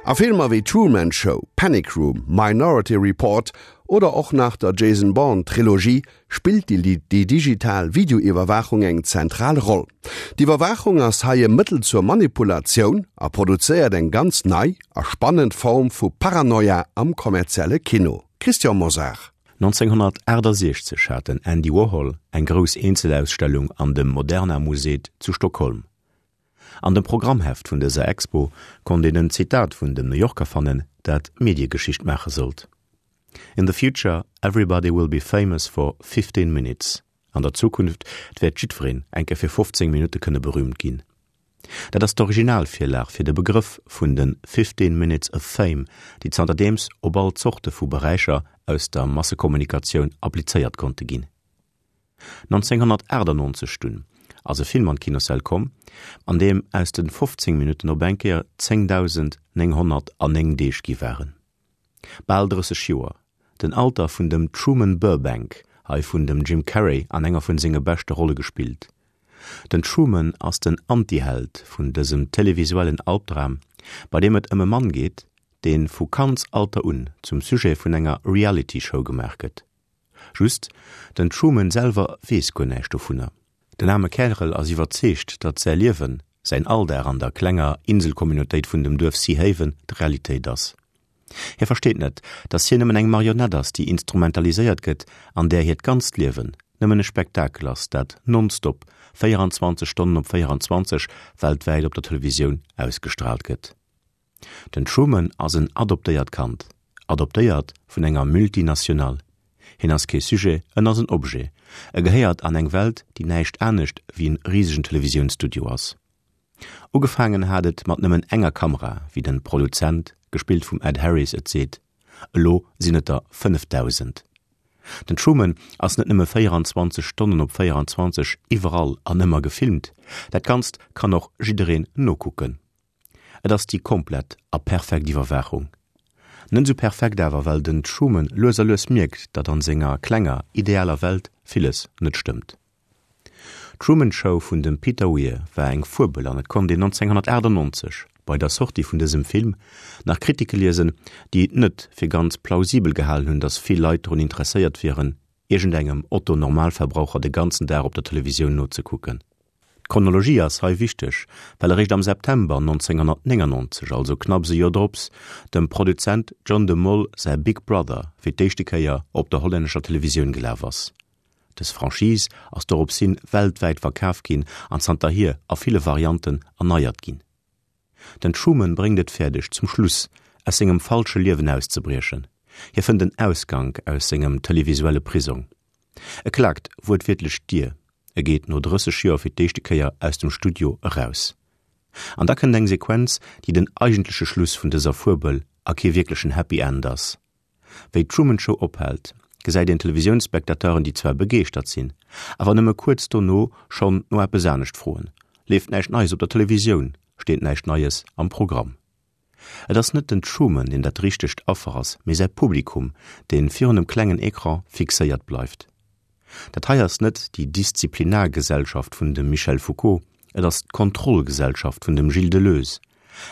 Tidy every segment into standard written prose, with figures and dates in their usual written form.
A Filmer wéi Truman Show, Panic Room, Minority Report oder och nach der Jason Bourne Trilogie spillt déi digital Videoiwwerwaachung eng zentral Roll. D'Iwwerwaachung ass hei e Mëttel zur Manipulatioun a produzéiert eng ganz nei a spannend Form vu Paranoia am kommerzielle Kino. Christian Mosar. 1968 hat den Andy Warhol eng grouss Eenzelausstellung an dem Moderna Museet zu Stockholm. An dem Programmheft vun dëser Expo konnt een en Zitat vun dem New Yorker fannen, dat Mediegeschicht maache sollt, In the future everybody will be famous for 15 minutes. An der Zukunft wäert jiddwereen eng Kéier fir 15 Minutte kënne berüümt ginn. Dat ass d'Originalvirlag fir de Begrëff vun de 15 minutes of fame, déi zanterdeems op all Zorte vu Beräicher aus der Massekommunikatioun applizéiert konnte ginn. 1998 dunn ass e Film an d'Kinossäll komm, an deem aus de 15 Minutten op eng Kéier 10.909 Deeg gi waren. Bal 30 Joer, den Alter vun dem Truman Burbank, hei vun dem Jim Carrey an enger vun senge beschte Rolle gespillt. Den Truman ass den Antiheld vun dësem televisuellen Albdram, bei deem et ëm e Mann geet, dee vu Kandsalter un zum Sujet vun enger Reality-Show gemaach gëtt. Just, den Truman selwer weess guer näischt dovunner. Den aarme Kärel ass iwwerzeegt, datt säi Liewen, säin Alldag an der klenger Inselcommunautéit vun dem Duerf Sea Haven d'Realitéit ass. Hie versteet net, datt hien nëmmen eng Marionett ass, déi instrumentaliséiert gëtt an där hiert ganzt Liewen nëmmen e Spektakel ass, dat nonstop, 24 Stonnen op 24, weltwäit op der Televisioun ausgestraalt gëtt. Den Truman ass en adoptéiert Kand, adoptéiert vun enger Multinationale. Hien ass kee Sujet, en ass en Objet. E gehéiert an eng Welt, déi näischt anescht wéi en risegen Televisiounsstudio ass. Ugefaangen hat et mat nëmmen enger Kamera, wéi den Produzent, gespillt vum Ed Harris, et seet. Elo sinn et der 5.000. Den Truman ass net nëmme 24 Stonnen op 24 iwwerall an ëmmer gefilmt, dat Ganzt kann och jiddereen nokucken. Et ass déi komplett a perfekt Iwwerwaachung. Net esou perfekt awer, well den Truman lues a lues mierkt, datt an senger klenger, idealer Welt villes net stëmmt. D'Truman Show vun dem Peter Weir war eng Fuebel an et konnt een 1998, bei der Sortie vun dësem Film, nach Kritike liesen, déi et net fir ganz plausibel gehalen hunn, datt vill Leit drun interesséiert wieren, iergendengem Otto-Normalverbraucher de ganzen Dag op der Televisioun nozekucken. D'Chronologie ass hei wichteg, well eréischt am September 1999, also knapps e Joer drops, dem Produzent John de Mol säi Big Brother fir d'éischte Kéier op der hollännescher Televisioun gelaf ass. Dës Franchise ass dorops hin weltwäit verkaf ginn an zanterhier a ville Varianten erneiert ginn. Den Truman bréngt et fäerdeg, zum Schluss aus sengem falsche Liewen auszebriechen. Hie fënnt en Ausgank aus sengem televisuelle Prisong. E klaakt wuertwiertlech d'Dier, e geet no 30 Joer fir d'éischte Kéier aus dem Studio eraus. An da kënnt eng Sequenz, déi den eigentleche Schluss vun dëser Fuebel a kee wierklechen Happy End ass. Wéi d'Truman Show ophält, gesäit een Televisiounsspectateuren, déi zwar begeeschtert sinn, awer nëmme kuerz dono schonn no eppes anescht froen. Leeft näischt Neies op der Televisioun, steet näischt Neies am Programm. Et ass net den Truman, deen dat richtegt Affer ass, mee säi Publikum, dee virun dem klengen Ecran fixéiert bleift. Dat hei ass net déi Disziplinargesellschaft vun dem Michel Foucault, et ass d'Kontrollgesellschaft vun dem Gilles Deleuze,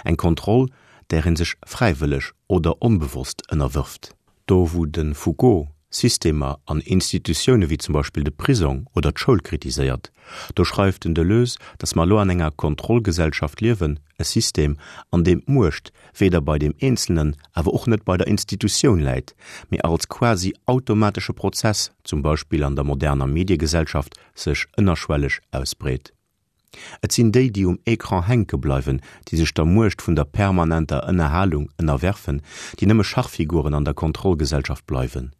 eng Kontroll, där ee sech fräiwëlleg oder onbewosst ënnerwërft. Do wou de Foucault Systemer an Institutioune wéi zum Beispill de Prisong oder d'Schoul kritiséiert, do schreift den Deleuze, datt mer elo an enger Kontrollgesellschaft liewen, e System, an deem d'Muecht weder bei deem Eenzelnen, awer och net bei der Institutioun läit, mee als quasi automatesche Prozess, zum Beispill an der moderner Mediegesellschaft, sech ënnerschwelleg ausbreet. Et sinn déi, déi um Ecran hänke bleiwen, déi sech der Muecht vun der permanenter Ënnerhalung ënnerwerfen, déi nëmme Schachfiguren an der Kontrollgesellschaft bleiwen.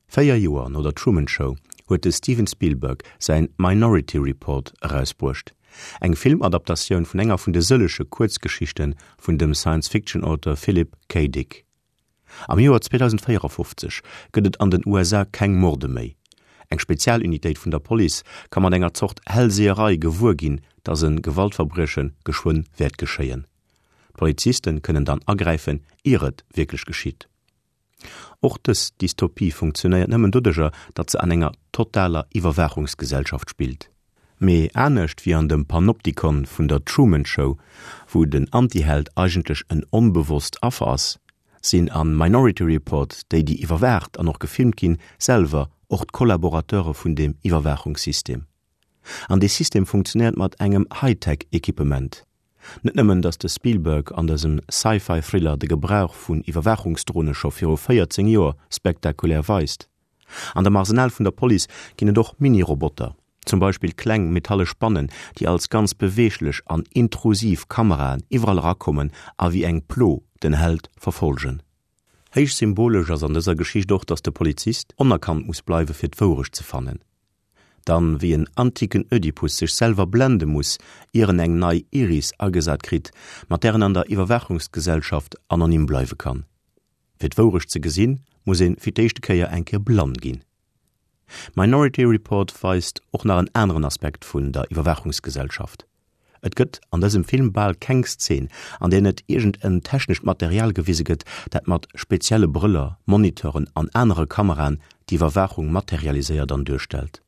4 Joer no der Truman Show huet de Steven Spielberg säin Minority Report erausbruecht, eng Filmadaptatioun vun enger vun de sëllege Kuerzgeschichte vun dem Science-Fiction-Auteur Philip K. Dick. Am Joer 2054 gëtt et an den USA keng Morde méi. Eng Spezialunitéit vun der Police ka mat enger Zort Hellseherei gewuer ginn, datt e Gewaltverbrieche geschwënn wäert geschéien. D'Poliziste kënnen dann agräifen, ier et wierklech geschitt. Och dës Dystopie funktionéiert nëmmen doduercher, datt se an enger totaler Iwwerwaachungsgesellschaft spillt. Mee anescht wéi an dem Panopticon vun der Truman Show, wou den Antiheld eigentlech en onbewosst Affer ass, sinn a Minority Report déi, déi iwwerwaacht an och gefilmt ginn, selwer och d'Kollaborateure vun deem Iwwerwaachungssystem. An dee System funktionéiert mat engem Hightech-Equipement. Net nëmmen, datt de Spielberg an dësem Sci-Fi-Thriller de Gebrauch vun Iwwerwaachungsdrone scho viru 14 Joer spektakulär weist. An dem Arsenal vun der Police ginn et och Mini-Roboter, zum Beispill kleng metallesch Bannen, déi als ganz beweeglech an intrusiv Kameraen iwwerall erakommen a wéi eng Plo den Held verfollgen. Héich symbolesch ass an dëser Geschicht och, datt de Polizist onerkannt muss bleiwe fir d'Wourecht ze fannen. Dann, wéi en antiken Ödipus sech selwer blende muss, ier en eng nei Iris agesat kritt, mat där en an der Iwwerwaachungsgesellschaft anonym bleiwe kann. Fir d'Wourecht ze gesinn, muss een fir d'éischte Kéier eng Kéier blann ginn. Minority Report weist och nach en aneren Aspekt vun der Iwwerwaachungsgesellschaft. Et gëtt an dësem Film bal keng Szen, an där net iergend en technescht Material gewise gëtt, dat mat spezielle Brëller, Moniteuren an anere Kameraen d'Iwwerwaachung materialiséiert an duerstellt.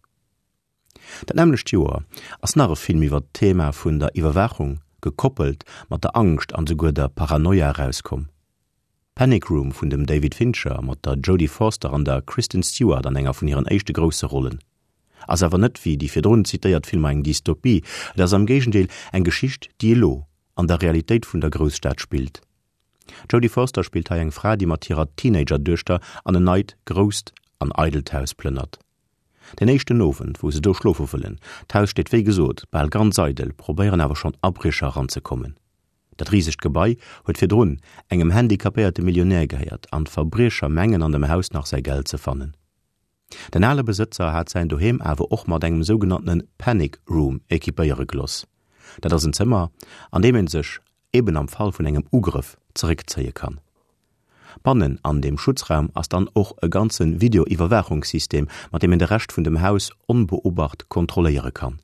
Dat nämmlecht Joer ass nach e Film iwwer d'Thema vun der Iwwerwaachung, gekoppelt mat der Angscht an souguer der Paranoia erauskomm. Panic Room vun dem David Fincher mat der Jodie Forster an der Kristen Stewart an enger vun hiren éischte grousse Rollen. Ass awer net wéi déi virdrun zitéiert Filmer eng Dystopie, et ass am Géigendeel eng Geschicht, déi elo an der Realitéit vun der Grousstad spillt. D'Jodie Forster spillt hei eng Fra, déi mat hirer Teenager-Duechter an en neit, grousst an eidelt Haus plënnert. Den éischten Owend, wou se do schlofe wëllen, d'Haus steet wéi gesot bal ganz eidel, probéieren awer schonn Abriecher eranzekommen. Dat risegt Gebai huet virdrun engem handicapéierte Millionär gehéiert an d'Verbriecher mengen an dem Haus nach säi Geld ze fannen. Den ale Besëtzer hat säin Doheem awer och mat engem sougenanntene Panic Room equipéiere geloss. Dat ass en Zëmmer, an deem een sech eben am Fall vun engem Ugrëff zeréckzéie kann. Bannen an deem Schutzraum ass dann och e ganze Videoiwwerwaachungssystem, mat deem een de Rescht vun dem Haus onbeobacht kontrolléiere kann.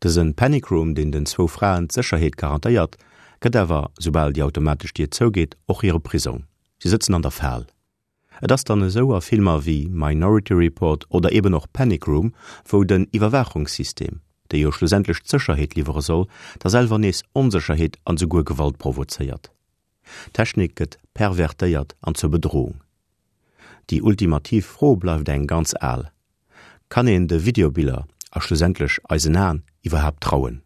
Dësen Panic Room, deen den zwou Fraen d'Sécherheet garantéiert, gëtt awer, soubal déi automatesch Dier zougeet, och hire Prisong. Si sëtzen an der Fal. Et ass dann esou a Filmer wéi Minority Report oder eben och Panic Room, wou den Iwwerwaachungssystem, dee jo schlussendlech d'Sécherheet liwwere soll, da selwer nees Onsécherheet an esouguer Gewalt provozéiert. D'Technik gëtt pervertéiert an zur Bedrohung. Déi ultimativ Fro bleift eng ganz al, Kann een de Videobiller a schlussendlech eisen Aen iwwerhaapt trauen?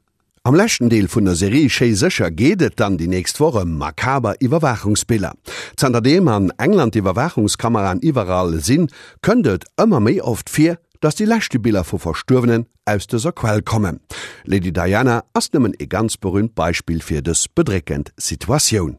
Am leschten Deel vun der Serie Schéi sécher geet et dann déi nächst Woch ëm makaber Iwwerwaachungsbiller. Zanterdeem an England d'Iwwerwaachungskameraen iwwerall sinn, kënnt et ëmmer méi oft vir, dass déi leschte Biller vu Verstuerwenen aus dëser Quell kommen. Lady Diana ass nëmmen ee ganz berüümt Beispill fir dës bedréckend Situatioun.